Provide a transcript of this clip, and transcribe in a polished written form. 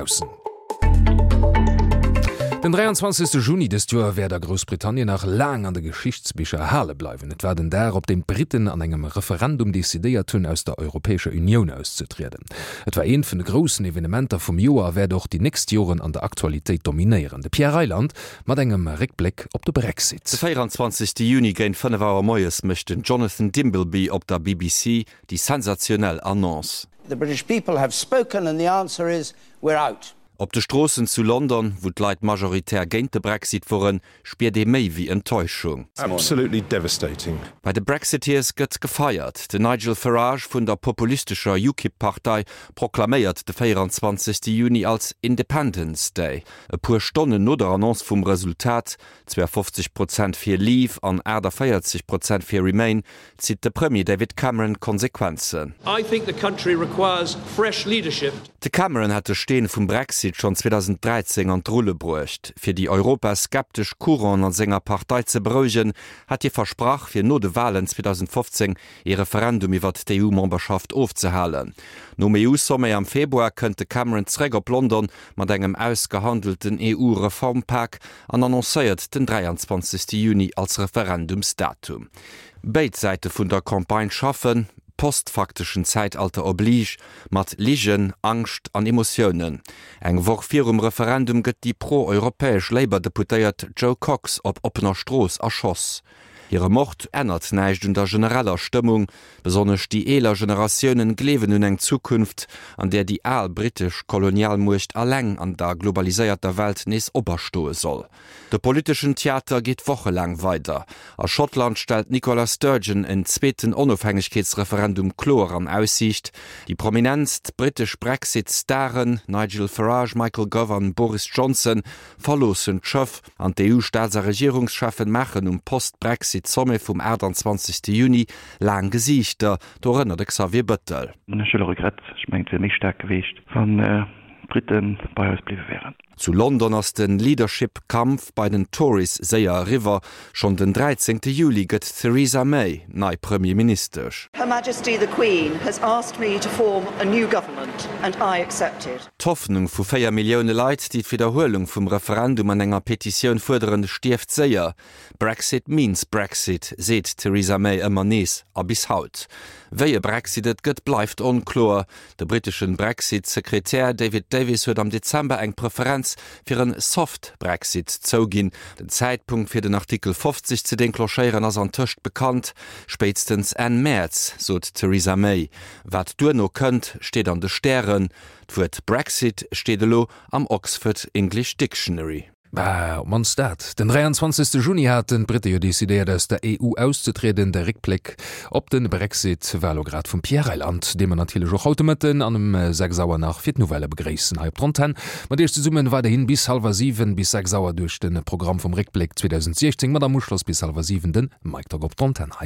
Aussen. Den 23. Juni dëst Joer wäert a Groussbritannien nach laang an de Geschichtsbicher erhale bleiwen. Et war den Dag, op deem d'Britten an engem Referendum decidéiert hunn, aus der Europäescher Unioun auszetrieden. Et war eent vun de groussen Evenementer vum Joer a wäert och déi nächst Joren an der Aktualitéit dominéieren. De Pierre Reyland mat engem Réckbléck op de Brexit. De 24. Juni géint 5 Auer moies mécht den Jonathan Dimbleby op der BBC déi sensationell Annonce. The British people have spoken and the answer is, we're out. Op de Stroossen zu London, wou d'Leit majoritär géint de Brexit woren, spiert ee méi wéi Enttäuschung. Absolutely devastating. Bei de Brexiteers gëtt gefeiert. Den Nigel Farage vun der populistescher UKIP-Partei proklaméiert de 24. Juni als Independence Day. E puer Stonnen no der Annonce vum Resultat, 52 Prozent fir Leave an 48 Prozent fir Remain, zitt de Premier David Cameron d'Konsequenzen. De Cameron hat de Steen vum Brexit schonn 2013 an d'Rulle bruecht. Fir déi europaskeptesch Couranten a senger Partei ze berouegen, hat hie versprach, fir no de Walen 2015 ee Referendum iwwert d'EU-Memberschaft ofzehalen. Nom EU-Sommet am Februar kënnt de Cameron zeréck op London mat engem ausgehandelten EU-Reformpak an annoncéiert den 23 Juni als Referendumsdatum. Béid Säite vun der Campagne schaffen, postfakteschen Zäitalter oblige, mat Ligen, Angscht an Emotiounen. Eng Woch virum Referendum gëtt déi pro-europäesch Labour-Deputéiert Jo Cox op oppener Strooss erschoss. Hire Mord ännert näischt un der genereller Stëmmung. Besonnesch déi eeler Generatiounen gleewen un eng Zukunft, an där déi al brittesch Kolonialmuecht alleng an der globaliséierter Welt nees operstoe soll. De politeschen Theater geet wochelaang weider. A Schottland stellt d'Nicola Sturgeon en zweeten Onofhängegkeetsreferendum kloer an Aussiicht. Déi prominentst brittesch Brexit-Staren, Nigel Farage, Michael Gove an Boris Johnson, verloossen d'Schëff an d'EU-Staats a Regierungscheffen maachen um Post-Brexit-Sommet vum 28 Juni laang Gesiichter, dorënner de Xavier Bëttel. Ech hu e Regrett, ech mengen et wier méi staark geweecht, wann d'Brite bei eis bliwwe wären. Zu London ass de Leadership-Kampf bei den Tories séier eriwwer. Schonn den 13 Juli gëtt d'Theresa May nei Premierministesch. Her Majesty the Queen has asked me to form a new government and I accepted. D'Hoffnung vu 4 Millioune Leit, déi d'Widderhuelung vum Referendum an enger Petitioun fuerderen, stierft séier. Brexit means Brexit, seet d'Theresa May ëmmer nees a bis haut. Wéi e Brexit et gëtt, bleift onkloer. De britteschen Brexit-Sekretär David Davis huet am Dezember eng Preferenz fir en Soft Brexit zouginn. Den Zäitpunkt fir den Artikel 50 ze denclenchéieren ass antëscht bekannt, spéitstens Enn Mäerz, sot d'Theresa May. Wat duerno kënnt, steet an de Stären. D'Wuert Brexit steet elo am Oxford English Dictionary. Bah, op d'mannst dat. Den 23. Juni haten d'Britte jo decidéiert aus der EU auszetrieden. De Réckbléck op de Brexit war elo grad vum Pierre Reyland, dee mer natierlech och haut de Mëtten an um 6 Auer nach fir d'Nouvellë begréissen hei op der Antenn. Mat Iech zesummen weiderhin bis hallwer 7, bis 6 Auer duerch de Programm vum Réckbléck 2016 mat am Uschloss bis hallwer 7 de Mike Tock op der Antenn hei.